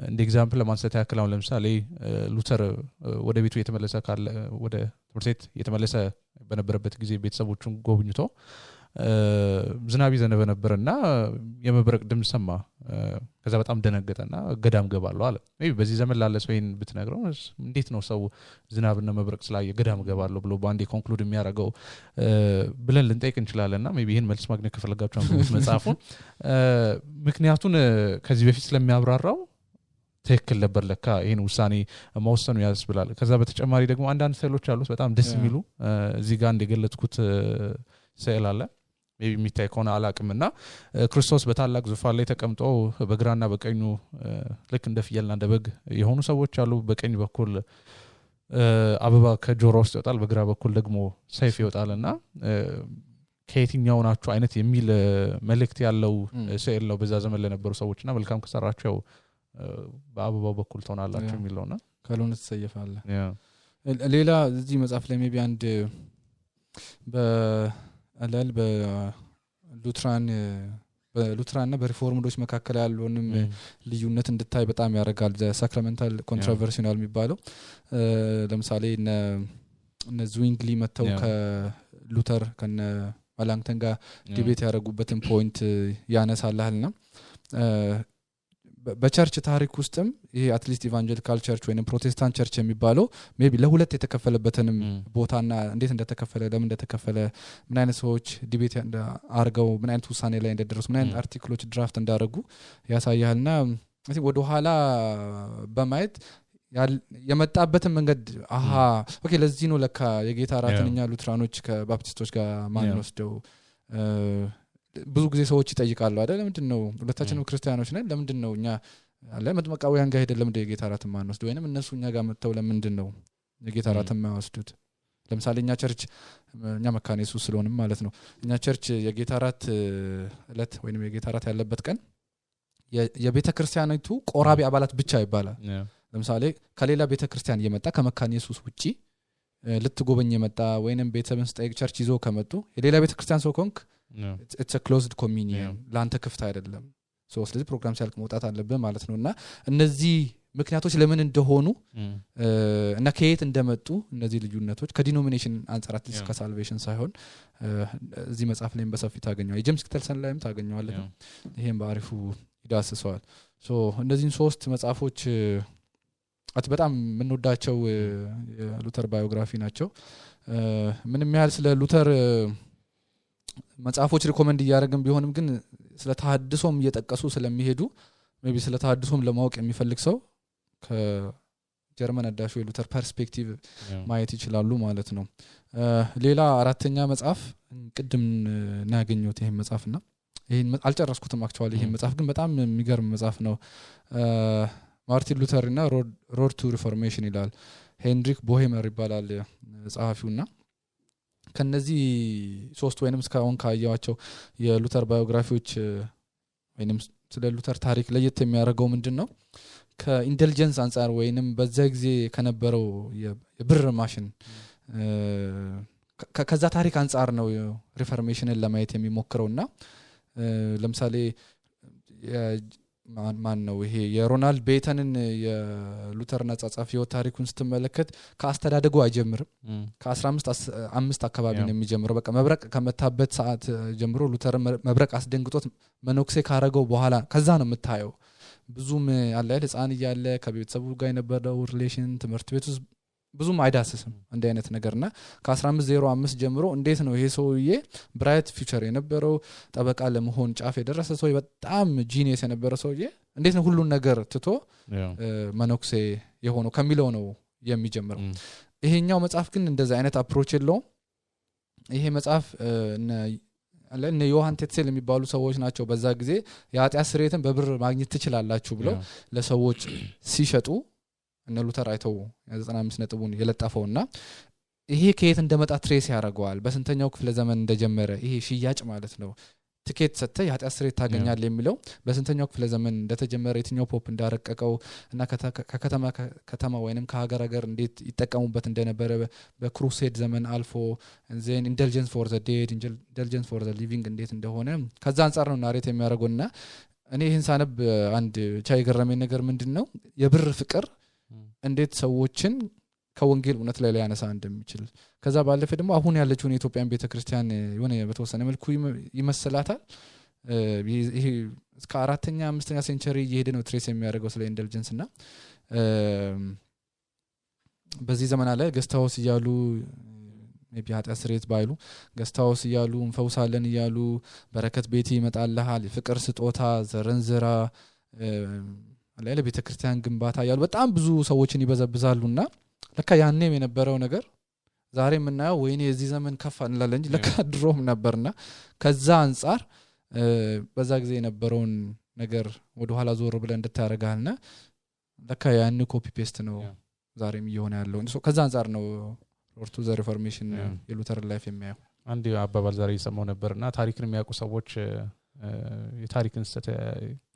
A: እንደ ኤግዛምፕል ለማንሳት ያክል አሁን ለምሳሌ ሉተር ወደ ቤቱ የተመለሰ ካለ ወደ ትምህርት ቤት የተመለሰ በነበረበት ጊዜ ቤተሰቦቹን ጎብኝቶ ዝናብ ይዘነበ ነበርና የመብረቅ ድምጽ ሰማ ከዛ በጣም ደነገጠና ገዳም ገባለሁ አለ ሜቢ በዚህ ዘመን ላለ ሰው ይሄን ብትነግረው እንዴት ነው ሰው ዝናብና መብረቅ ስላየ ገዳም ገባለሁ ብሎ ባንዴ ኮንክሉድ የሚያደርገው ብለን ልንጠይቅ እንችላለንና ሜቢ ይሄን መልስ ማግኘት ከፈለጋችሁ አንብቡት መጽሐፉን ምክንያቱን ከዚህ በፊት ስለሚያብራራው ትክክል ነበር ለካ ይሄን ውሳኔ መወሰኑ ያስብላል ከዛ በተጨማሪ ደግሞ አንዳንድ ስዕሎች አሉት በጣም ደስ የሚሉ እዚህ ጋር እንደገለጽኩት ስዕል አለ ሜቢ የሚታይ ከሆነ አላቅምና ክርስቶስ በታላቅ ዙፋን ላይ ተቀምጦ በግራና በቀኙ ልክ እንደ ፍየልና እንደ በግ የሆኑ ሰዎች አሉ በቀኝ በኩል አበባ ከጆሮ ውስጥ ይወጣል በግራ በኩል ደግሞ ሰይፍ ይወጣልና ከየትኛው ናችሁ አይነት የሚል መልእክት ያለው ስዕል ነው በዛ ዘመን ለነበሩ ሰዎችና መልካም ከሰራቸው በአበባው በኩል ተሆናላችሁ የሚለውና
B: ካልሆነ ተሰየፋለህ ሌላ እዚህ መጽሐፍ ላይ ሜቢ አንድ በአላል በሉትራንና በሪፎርምዶች መካከል ያለውንም ልዩነት እንድታይ በጣም ያረጋል ሳክራሜንታል ኮንትሮቨርሲናል የሚባለው ለምሳሌ እነ ዙዊንግሊ መተው ከሉተር ከነ ማላንክተን ጋር ዲቤት ያደረጉበትን ፖይንት ያነሳልልና በቸርች ታሪክ ውስጥም ይሄ አትሊስት ኢቫንጀሊካል ቸርች ወይንም ፕሮቴስታንት ቸርች የሚባለው ሜቢ ለሁለት የተከፈለበትንም ቦታና እንዴት እንደተከፈለ ለምን እንደተከፈለ ምን አይነት ሰዎች ዲቤት አርገው ምን አይነት ውሳኔ ላይ እንደደረሱ ምን አይነት አርቲክሎች ድራፍት እንዳደረጉ ያሳያልና ወደ ኋላ በማየት የመጣበትን መንገድ ኦኬ ለዚህ ነው ለካ የጌታ ራትንኛ ሉትራኖች ከባፕቲስቶች ጋር ማን ወስደው ብዙ ጊዜ ሰዎች ይጠይቃሉ አይደል ለምንድነው ሁለታችንም ክርስቲያኖች ነን ለምንድነው እኛ አለ መጥመቃውያን ጋር ሄደን ለምንድነው የጌታ ራትን ማን ወስደው ወይንም እነሱ እኛ ጋር መተው ለምንድነው የጌታ ራትን ማወስዱት ለምሳሌ እኛ ቸርች እኛ መካነ ኢየሱስ ስለሆነም ማለት ነው እኛ ቸርች የጌታ ራት እለት ወይንም የጌታ ራት ያለበት ቀን የቤተ ክርስቲያኒቱ ቆራቢ አባላት ብቻ ይባላል ለምሳሌ ከሌላ ቤተ ክርስቲያን የመጣ ከመካነ ኢየሱስ ውጪ ልትጎበኝ የመጣ ወይንም ቤተሰብን ስጠይቅ ቸርች ይዞ ከመጡ የሌላ ቤተ ክርስቲያን ሰው ኮንክ it's a closed communion ላንተ ክፍት አይደለም ስለዚህ ፕሮግራም ሲያልቅ መውጣት አለበት ማለት ነውና እነዚህ ምክንያቶች ለምን እንደሆኑ እና ከየት እንደመጡ እነዚህ ልዩነቶች ከዲኖሚኔሽን አንፃር አትሊስት ከሳልቬሽን ሳይሆን እዚህ መጽሐፍ ላይም በሰፊ ታገኛለህ ጄምስ ክተልሰን ላይም ታገኛለህ ይሄን በአሪፉ ይዳስሰዋል እነዚህን ሶስት መጽሐፎች በጣም የምንወዳቸው የሉተር ባዮግራፊ ናቸው ምንም ያህል ስለ ሉተር መጽሐፎች ሪኮመንድ እያደረግን ቢሆንም ግን ስለ ተሐድሶም እየጠቀሱ ስለሚሄዱ ሜቢ ስለ ተሐድሶም ለማወቅ የሚፈልግ ሰው ከጀርመን አዳሹ የሉተር ፐርስፔክቲቭ ማየት ይችላሉ ማለት ነው ሌላ አራተኛ መጽሐፍ ቅድም እናገኘሁት ይሄን መጽሐፍና ይሄን አልጨረስኩትም አክቹአሊ ይሄን መጽሐፍ ግን በጣም የሚገርም መጽሐፍ ነው ማርቲን ሉተር እና ሮድ ቱ ሪፎርሜሽን ይላል ሄንድሪክ ቦሄመር ይባላል ጸሐፊውና ከነዚህ ሶስት ወይንም እስካሁን ካያቸው የሉተር ባዮግራፊዎች ወይንም ስለ ሉተር ታሪክ ለየት የሚያደርገው ምንድነው ከኢንተለጀንስ አንፃር ወይንም በዛ ጊዜ ከነበረው የብር ማሽን ከዛ ታሪክ አንፃር ነው ሪፎርሜሽንን ለማየት የሚሞክረውና ለምሳሌ ማን ነው ይሄ የሮናልድ ቤተንን የሉተር ነጻጻፍ ህይወት ታሪኩን ስትመለከት ከአስተዳደጉ አይጀምርም ከ15 አካባቢ ነው የሚጀምረው በቃ መብረቅ ከመታበት ሰዓት ጀምሮ ሉተር መብረቅ አስደንግጦት መኖክሴ ካረገው በኋላ ከዛ ነው የምታየው ብዙም አለ ህፃን እያለ ከቤተሰቡ ጋር የነበረው ሪሌሽን ትምህርት ቤት ውስጥ ብዙም አይዳስስም እንደ አይነት ነገርና ከ1505 ጀምሮ እንዴት ነው ይሄ ሰውዬ ብራይት ፊውቸር የነበረው ጠበቃ ለመሆን ጫፍ የደረሰ ሰው በጣም ጂኒየስ የነበረ ሰውዬ እንዴት ነው ሁሉን ነገር ትቶ መነኩሴ የሆነው ከሚለው ነው የሚጀምረው ይሄኛው መጽሐፍ ግን እንደዛ አይነት አፕሮች የለውም ይሄ መጽሐፍ እነ ዮሐን ቴትሴል የሚባሉ ሰዎች ናቸው በዛ ጊዜ የኃጢአት ስርየትን በብር ማግኘት ትችላላችሁ ብለው ለሰዎች ሲሸጡ እነ ሉተር አይተው 95 ነጥቡን የለጣፈውና ይሄ ከየት እንደመጣ ትሬስ ያደርገዋል በስንተኛው ክፍለ ዘመን እንደጀመረ ይሄ ሽያጭ ማለት ነው ቲኬት ሰጥተ የኃጢአት ስርየት ታገኛል የሚለው በስንተኛው ክፍለ ዘመን እንደተጀመረ የትኛው ፖፕ እንዳረቀቀው እና ከተማ ወይንም ከሀገር እንዴት ይጠቀሙበት እንደነበረ በክሩሴድ ዘመን አልፎ ዜን ኢንደልጀንስ ፎር ዘ ዴድ ኢንደልጀንስ ፎር ዘ ሊቪንግ እንዴት እንደሆነ ከዛ አንፃር ነው ናሬት የሚያደርገውና እኔ ይህን ሳነብ አንድ ቻይ ገረመኝ ነገር ምንድነው የብር ፍቅር እንዴት ሰዎችን ከወንጌል እውነት ላይ ያነሳ እንደሚችል ከዛ ባለፈ ደግሞ አሁን ያለችው የኢትዮጵያን ቤተክርስቲያን የሆነ በተወሰነ መልኩ ይመስላታል ይሄ እስከ 4ኛ 5ኛ ሴንቸሪ እየሄደ ነው ትሬስ የሚያደርገው ስለ ኢንደልጀንስ እና በዚህ ዘመን አለ ገስታውስ ይያሉ ሜቢ ኃጢአት ስርየት ባይሉ ገስታውስ ይያሉ እንፈውሳለን ይያሉ በረከት ቤት ይመጣልሃል ፍቅር ስጦታ ዘረንዝራ አለ ቤተክርስቲያን ግንባታ ያሉ በጣም ብዙ ሰዎችን ይበዘብዛሉና ለካ ያኔም የነበረው ነገር ዛሬ የምናየው ወይኔ የዚህ ዘመን ከፋ እንላለን እንጂ ለካ ድሮም ነበርና ከዛ አንፃር በዛ ጊዜ የነበረውን ነገር ወደ ኋላ ዞር ብለን እንድታረጋልና ለካ ያን ኮፒ ፔስት ነው ዛሬም እየሆነ ያለው ከዛ አንፃር ነው ኦርቶ ዘ ሪፎርሜሽን የሉተር ላይፍ የሚያየው
A: አንድ አባባል ዛሬ ይሰማው ነበርና ታሪክን የሚያውቁ ሰዎች የታሪክን ስህተት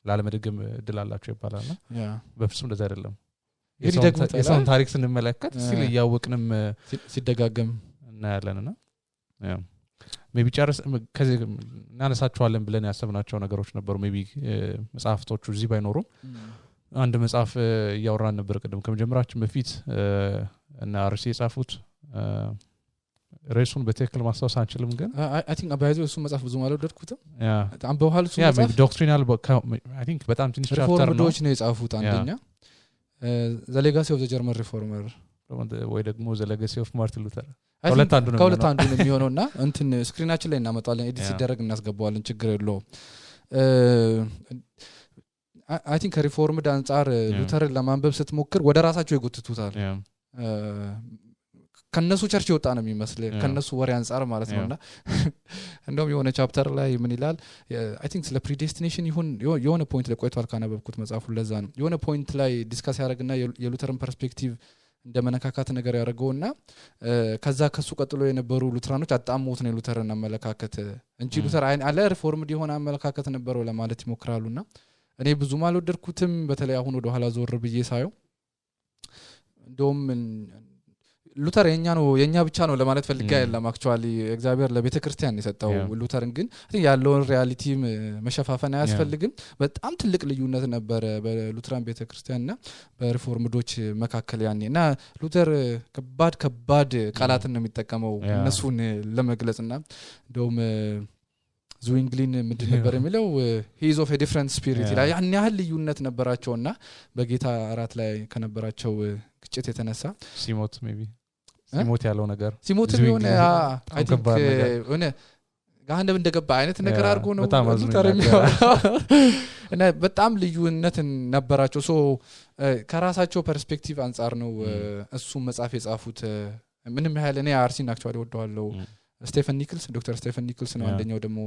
A: ላለመደገም እድል አላቸው ይባላልና በፍጹም እንደዛ አይደለም የሰውን ታሪክ ስንመለከት ሲል ያወቅንም
B: ሲደጋገም
A: እናያለንና ሜቢ ጨርስ ከዚህ እናነሳቸዋለን ብለን ያሰብናቸው ነገሮች ነበሩ ሜቢ መጽሐፍቶቹ እዚህ ባይኖሩም አንድ መጽሐፍ ያወራን ነበር ቀደም ከመጀመራችን በፊት እና አርሲ የጻፉት ሬሱን በትክክል ማስታወስ አንችልም ግን
B: አይ ቲንክ አባይዘው እሱ መጽሐፍ ብዙ ማለት ወደድኩት አንበዋል እሱ
A: መጽሐፍ ዶክትሪናል አይ ቲንክ በጣም ትንሽ ቻፕተር ነው
B: ሪፎርምዶች ነው የጻፉት አንደኛ ዘ ሌጋሲ ኦፍ ዘ ጀርመን ሪፎርመር
A: ወይ ደግሞ ዘ ሌጋሲ ኦፍ ማርቲን ሉተር
B: ከሁለት አንዱ ነው የሚሆነውና እንትን ስክሪናችን ላይ እናመጣለን ኤዲት ሲደረግ እናስገባዋለን ችግር የለውም አይ ቲንክ ሪፎርምድ አንፃር ሉተርን ለማንበብ ስትሞክር ወደ ራሳቸው ይጎትቱታል ከነሱ ቸርች ይወጣ ነው የሚመስል ከነሱ ወሬ አንፃር ማለት ነውና እንደውም የሆነ ቻፕተር ላይ ምን ይላል አይ ቲንክ ስለ ፕሪዴስቲኔሽን ይሁን የሆነ ፖይንት ላይ ቆይቷል ካነበብኩት መጽሐፉ ለዛ ነው የሆነ ፖይንት ላይ ዲስካስ ያደርግና የሉተርን ፐርስፔክቲቭ እንደመነካካት ነገር ያደርገውና ከዛ ከሱ ቀጥሎ የነበሩ ሉተራኖች አጣሞት ነው ሉተርን አመለካከት እንጂ ሉተር አለ ሪፎርምድ የሆነ አመለካከት ነበረው ለማለት ይሞክራሉና እኔ ብዙም አልወደድኩትም በተለይ አሁን ወደ ኋላ ዞር ብዬ ሳየው እንደውም ሉተር የኛ ብቻ ነው ለማለት ፈልጋ አይደለም አክቹአሊ እግዚአብሔር ለቤተክርስቲያን የሰጠው ሉተርን ግን ያለውን ሪያሊቲ መሸፋፈን አያስፈልግም በጣም ትልቅ ልዩነት ነበር በሉተራን ቤተክርስቲያንና በሪፎርምዶች መካከል ያኔና ሉተር ከባድ ቃላትን ነው የሚጠቀመው እነሱን ለመግለጽና እንደውም ዙዊንግሊን ምንድን ነበር የሚለው he is of a different spirit ይላል ያን ያህል ልዩነት ነበራቸውና በጌታ አራት ላይ ከነበራቸው ግጭት የተነሳ
A: ሲሞት ሜቢ ሲሞት ያለው ነገር
B: ሲሞት ቢሆን አይ ቲንክ ሆነ ጋህነብ እንደገባ አይነት ነገር አድርጎ ነው ሉተር የሚያወራው እና በጣም ልዩነት ነበራቸው ሶ ከራሳቸው ፐርስፔክቲቭ አንፃር ነው እሱ መጽሐፍ የጻፉት ምንም ያህል እኔ አርሲን አክቹአሊ ወደዋለው ስቴፈን ኒክልስ ዶክተር ስቴፈን ኒክልስ ነው አንደኛው ደግሞ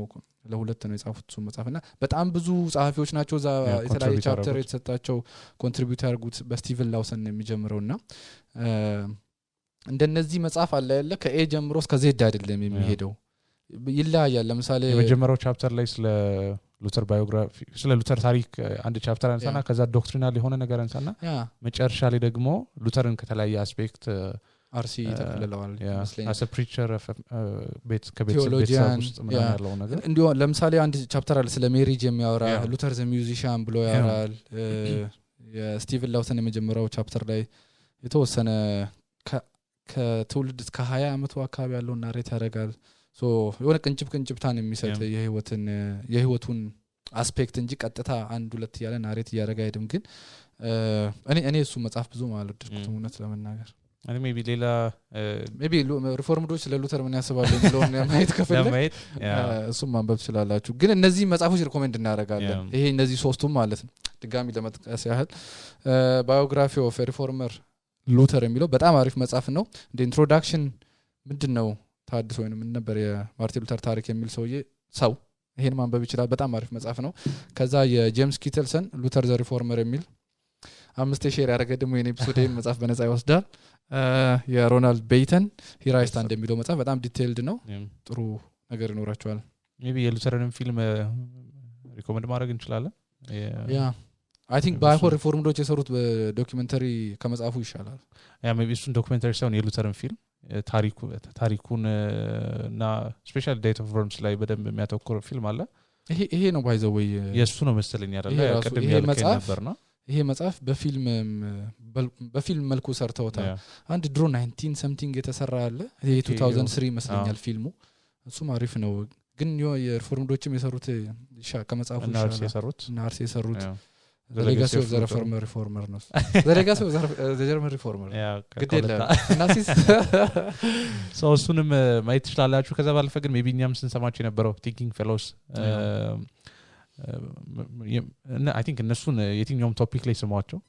B: ለሁለት ነው የጻፉት እሱ መጽሐፍና በጣም ብዙ ጻፊዎች ናቸው ዛ የተለያየ ቻፕተር የተሰጣቸው ኮንትሪቢዩት ያርጉት በስቲቨን ላውሰን የሚጀምረውና እንደነዚህ መጽሐፍ አለ ያለ ከኤ ጀምሮ እስከ ዜድ አይደለም የሚሄደው ይላያል ለምሳሌ
A: የመጀመሪያው ቻፕተር ላይ ስለ ሉተር ባዮግራፊ ስለ ሉተር ታሪክ አንድ ቻፕተር አንሳና ከዛ ዶክትሪናል የሆነ ነገር አንሳና መጨረሻ ላይ ደግሞ ሉተርን ከተለያየ አስፔክት
B: አርሲ ተከለለዋል
A: መስለኝ as a preacher of ከቤተሰብ ውስጥ ምን ያለው ነገር
B: እንዲሁ ለምሳሌ አንድ ቻፕተር አለ ስለ ሜሪጅ የሚያወራ ሉተር ዘ ሚውዚሺያን ብሎ ያወራል የስቲቨን ላውሰን የመጀመሪያው ቻፕተር ላይ የተወሰነ ከትውልድ እስከ 20 አመቱ አካባቢ ያለው ናሬት ያደርጋል ሶ የሆነ ቅንጭብታን የሚሰጥ የህይወቱን አስፔክት እንጂ ቀጥታ አንድ ሁለት ያለ ናሬት ያደርጋ አይደም ግን እኔ እሱ መጽሐፍ ብዙ ማለት ድርኩት እውነት ለመናገር
A: አይ ሜቢ ሌላ
B: ሜቢ ሪፎርምዶች ለሉተር ምን ያስባሉ የሚለውን ማየት ከፈለክ እሱም ማንበብ ትችላላችሁ ግን እነዚህ መጽሐፎች ሪኮሜንድ እናደርጋለን ይሄ እነዚህ ሶስቱም ማለት ነው ድጋሚ ለመጥቀስ ያህል ባዮግራፊ ኦፍ ሪፎርመር ሉተር የሚለው በጣም አሪፍ መጽሐፍ ነው እንደ ኢንትሮዳክሽን ምንድነው ታድሶ ወይንም ምን ነበር የማርቲን ሉተር ታሪክ የሚል ሰው ይሄን ማንበብ ይችላል በጣም አሪፍ መጽሐፍ ነው ከዛ የጄምስ ኪተልሰን ሉተር ዘ ሪፎርመር የሚል 5 ሼር ያደረገ ደግሞ የኔ ኤፒሶድን መጽሐፍ በነፃ ይወስዳል የሮናልድ ቤይተን ሂራይስታ እንደሚለው መጽሐፍ በጣም ዲቴይልድ ነው ጥሩ ነገር ይኖራቸዋል
A: ሜቢ የሉተርን ፊልም ሪኮመንድ ማድረግ እንችላለን
B: ያ አይ ቲንክ ባይሆን ሪፎርምዶች የሰሩት በዶክመንተሪ ከመጽሐፉ ይሻላል
A: ያ ሜቢ እሱን ዶክመንተሪ ሳይሆን የሉተርን ፊልም ታሪኩን እና ስፔሻል ዴት ኦፍ ወርምስ ላይ በደንብ የሚያተኩር ፊልም አለ
B: ይሄ ነው ባይዘው ወይ
A: የሱ ነው መሰለኝ አይደል ቀደም ያልከኝ ነበርና
B: ይሄ መጽሐፍ በፊልም መልኩ ሰርተውታል አንድ ድሮ 19 something የተሰራ አለ ይሄ 2003 መስለኛል ፊልሙ እሱም አሪፍ ነው ግን የሪፎርምዶችም የሰሩት ከመጽሐፉ ናርሲ የሰሩት The Legacy of the Reformer ነው The Legacy of the German Reformer ግዴለ ናሲስ
A: ሰው እሱንም ማየት ትችላላችሁ ከዛ ባለፈ ግን ሜቢ እኛም ስንሰማቸው የነበረው ቲንኪንግ ፌሎስ I think እነሱን የትኛውም ቶፒክ ላይ ስሟቸው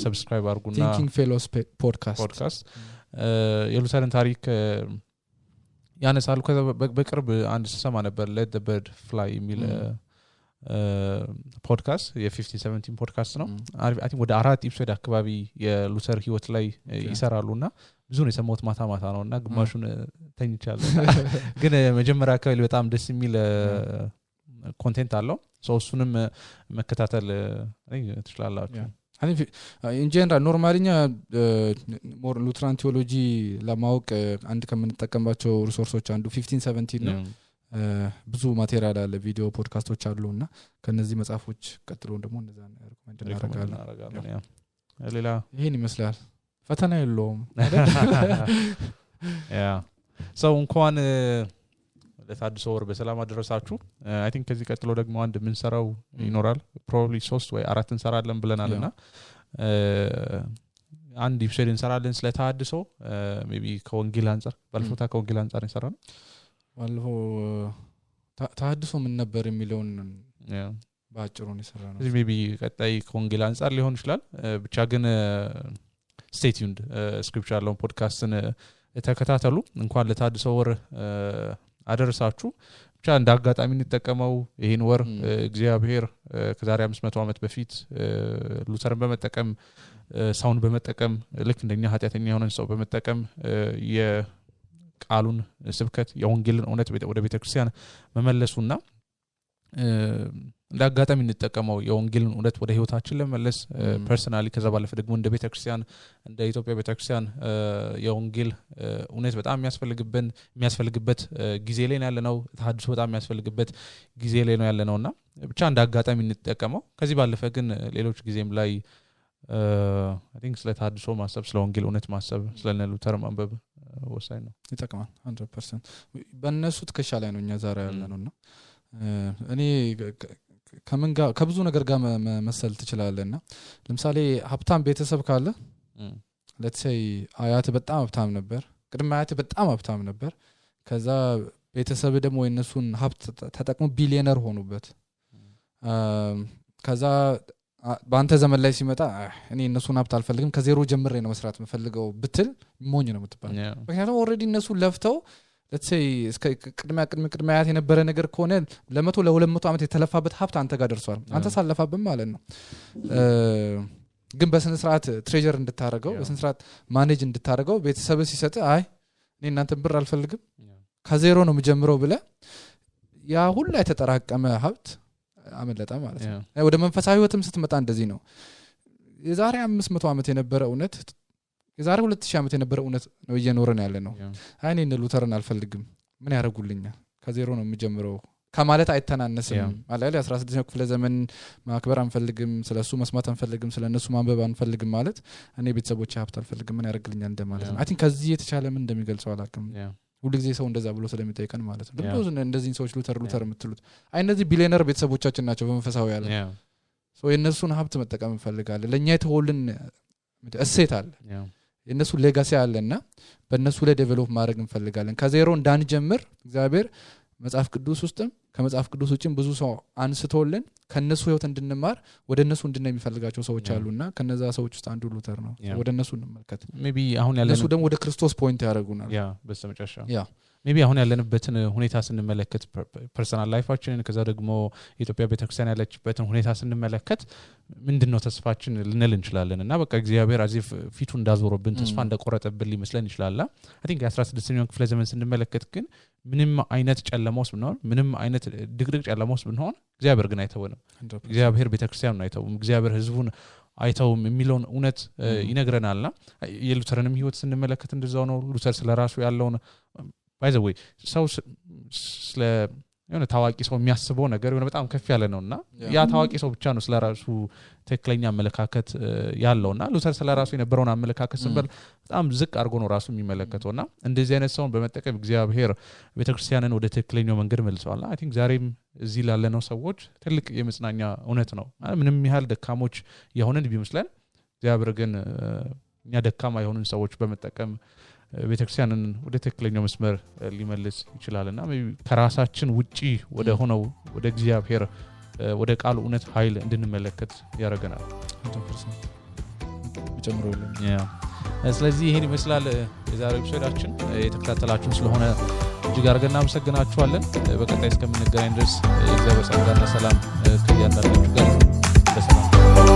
A: ሰብስክራይብ አድርጉና
B: ቲንኪንግ ፌሎስ ፖድካስት
A: የሉተርን ታሪክ ያነሳሉ ከዛ በቅርብ አንድ ሰማ ነበር Let the Bird Fly የሚል ፖድካስት የ5017 ፖድካስት ነው አይ ቲንክ ወደ 4 ኤፒሶድ አካባቢ የሉተር ህይወት ላይ ይሰራሉና ብዙ ነው የሰማሁት ማታ ነውና ግማሹን ተኝቻለሁ ግን መጀመሪያ አካባቢ በጣም ደስ የሚል ኮንቴንት አለው እሱንም መከታተል ትችላላችሁ
B: in general ኖርማሊኛ ሞር ሉትራን ቴዎሎጂ ለማወቅ አንድ ከምንጠቀምባቸው ሪሶርሶች አንዱ 1517 ነው ብዙ ማቴሪያል አለ ቪዲዮ ፖድካስቶች አሉና ከነዚህ መጽሐፎች ቀጥሎ ደግሞ እንደዛ ሪኮመንድ እናደርጋለን
A: ሌላ
B: ይሄን ይመስላል ፈተና የለውም
A: ያ ሰው እንኳን ለታድሶ ወር በሰላም አደረሳችሁ አይ ቲንክ ከዚህ ቀጥሎ ደግሞ አንድ ምን ሰራው ይኖራል ፕሮባብሊ 3 ወይ 4 እንሰራለን ብለናልና አንድ ኢፕሶድ እንሰራለን ስለ ታድሶ ሜቢ ከወንጌል አንፃር ባልፎታ ከወንጌል አንፃር እንሰራለን
B: ባልፎ ታድሶ ምን ነበር የሚለውን ባጭሩ ነው የሰራነው
A: እዚህ ሜቢ ቀጣይ ከወንጌል አንፃር ሊሆን ይችላል ብቻ ግን stay tuned ስክሪፕቸር ያለውን ፖድካስትን ተከታተሉ እንኳን ለታድሶ ወር አደረሳችሁ ብቻ እንደ አጋጣሚ እንጠቀመው ይሄን ወር እግዚአብሔር ከዛሬ 500 ዓመት በፊት ሉተርን በመጠቀም ሳውንድ በመጠቀም ልክ እንደኛ ኃጢያተኛ የሆነን ሰው በመጠቀም የቃሉን ስብከት የወንጌልን እውነት ወደ ቤተክርስቲያን መመለሱና እንደ አጋጣሚ እንጠቀመው የወንጌልን እውነት ወደ ህይወታችን ለመመለስ ፐርሰናሊ ከዛ ባለፈ ደግሞ እንደ ቤተክርስቲያን እንደ ኢትዮጵያ ቤተክርስቲያን የወንጌል እውነት በጣም የሚያስፈልግበት ጊዜ ላይ ያለነው ታድሶ በጣም የሚያስፈልግበት ጊዜ ላይ ነው ያለነውና ብቻ እንደ አጋጣሚ እንጠቀመው ከዚህ ባለፈ ግን ሌሎች ጊዜም ላይ I think ስለ ታድሶ ማሰብ ስለ ወንጌል እውነት ማሰብ ስለ ሉተር ማንበብ ወሳኝ ነው
B: ይጠቅማል 100% በእነሱ ትከሻ ላይ ነው እኛ ዛሬ ያለነውና እኔ ከምን ጋር ከብዙ ነገር ጋር መሰል ትችላለህና ለምሳሌ ሀብታም ቤተሰብ ካለ let's say አያት በጣም ሀብታም ነበር ቅድመ አያት በጣም ሀብታም ነበር ከዛ ቤተሰብ ደግሞ የነሱን ሀብት ተጠቅሞ ቢሊየነር ሆኑበት ከዛ በአንተ ዘመን ላይ ሲመጣ እኔ እነሱን ሀብት አልፈልግም ከዜሮ ጀምሬ ነው መስራት የምፈልገው ብትል ሞኝ ነው የምትባል ምክንያቱም ኦሬዲ እነሱ ለፍተው let's say ቅድመ አያት የነበረ ነገር ከሆነ ለ100 ለ200 ዓመት የተለፋበት ሀብት አንተ ጋር ደርሷል አንተ ሳለፋብም ማለት ነው ግን በስነ ስርዓት ትሬጀር እንድታረገው በስነ ስርዓት ማኔጅ እንድታረገው ቤተሰብ ሲሰጥ አይ እኔ እናንተን ብር አልፈልግም ከዜሮ ነው የምጀምረው ብለ ያ ሁሉ የተጠራቀመ ሀብት አመለጣ ማለት ነው ወደ መንፈሳዊ ህይወትም ስትመጣ እንደዚህ ነው የዛሬ 500 ዓመት የነበረ እውነት የዛሬ 2000 ዓመት የነበረ እውነት ነው እየኖረን ያለ ነው አይኔ እነ ሉተርን አልፈልግም ምን ያረጉልኛል ከዜሮ ነው የምጀምረው ከማለት አይተናነስም ማለት 16ኛው ክፍለ ዘመን ማክበር አንፈልግም ስለሱ መስማት አንፈልግም ስለነሱ ማንበብ አንፈልግም ማለት እኔ ቤተሰቦቼ ሀብት አልፈልግም ምን ያረግልኛል እንደማለት ነው አይ ቲንክ ከዚህ የተቻለ ምን እንደሚገልጸው አላውቅም ሁሉ ጊዜ ሰው እንደዛ ብሎ ስለሚጠይቀን ማለት ነው ለምን እንደዚህ ሰዎች ሉተር የምትሉት አይ እነዚህ ቢሊየነር ቤተሰቦቻችን ናቸው በመንፈሳዊ ያለ ሶ የነሱን ሀብት መጠቀም እንፈልጋለን ለኛ የተወልን እሴት አለ የነሱ ሌጋሲ አለና በእነሱ ላይ ዴቨሎፕ ማድረግ እንፈልጋለን ከዜሮ እንዳንጀምር እግዚአብሔር መጽሐፍ ቅዱስ ውስጥም ከመጽሐፍ ቅዱስ ውጭም ብዙ ሰው አንስቶልን ከነሱ ህይወት እንድንማር ወደ እነሱ እንድንነይ የሚፈልጋቸው ሰዎች አሉና ከነዛ ሰዎች ውስጥ አንዱ ሉተር ነው ወደ እነሱ እንመልከት
A: ሜቢ አሁን ያለነው
B: እነሱ ደግሞ ወደ ክርስቶስ ፖይንት ያደርጉናል
A: በስተመጨረሻ ሜቢ አሁን ያለንበትን ሁኔታ ስንመለከት ፐርሰናል ላይፋችንን ከዛ ደግሞ የኢትዮጵያ ቤተክርስቲያን ያለችበትን ሁኔታ ስንመለከት ምንድነው ተስፋችን ልንል እንችላለን እና በቃ እግዚአብሔር አዚፍ ፊቱ እንዳዞረብን ተስፋ እንደቆረጠብን ሊመስለን ይችላል አይ ቲንክ 16ኛው ክፍለ ዘመን ስንመለከት ግን ምንም አይነት ጨለማ ውስጥ ብንሆን ምንም አይነት ድቅድቅ ጨለማ ውስጥ ብንሆን እግዚአብሔር ግን አይተወንም እግዚአብሔር ቤተክርስቲያኑን አይተውም እግዚአብሔር ህዝቡን አይተውም የሚለውን እውነት ይነግረናልና የሉተርንም ህይወት ስንመለከት እንደዛው ነው ሉተር ስለራሱ ያለውን by the way ሰው ስለ የሆነ ታዋቂ ሰው የሚያስበው ነገር የሆነ በጣም ከፍ ያለ ነውና ያ ታዋቂ ሰው ብቻ ነው ስለራሱ ተክለኛ አመለካከት ያለውና ሉተር ስለራሱ የነበረውን አመለካከት ስንበል በጣም ዝቅ አድርጎ ነው ራሱ የሚመለከተውና እንደዚህ አይነት ሰውን በመጠቀም እግዚአብሔር ቤተክርስቲያንን ወደ ተክለኛው መንገድ መልሰዋል አይ ቲንክ ዛሬም እዚህ ላለነው ሰዎች ትልቅ የመጽናኛ እውነት ነው ምንም ያህል ደካሞች የሆነን ቢመስለን እግዚአብሔር ግን እኛ ደካማ የሆኑን ሰዎች በመጠቀም ቤተክርስቲያንን ወደ ተክለኛው መስመር ሊመልስ ይችላልና ከራሳችን ውጪ ወደ ሆነው ወደ እግዚአብሔር ወደ ቃሉ እውነት ኃይል እንድንመለከት ያደርገናል
B: 100% ጨምሮልን
A: ስለዚህ ይሄን ይመስላል የዛሬው ኤፒሶዳችን የተከታተላችሁ ስለሆነ እጅግ አድርገን እናመሰግናችኋለን በቀጣይ እስከምንገናኝ ድረስ የእግዚአብሔር ጸጋና ሰላም ከእያንዳንዳችሁ ጋር ይሁን በሰላም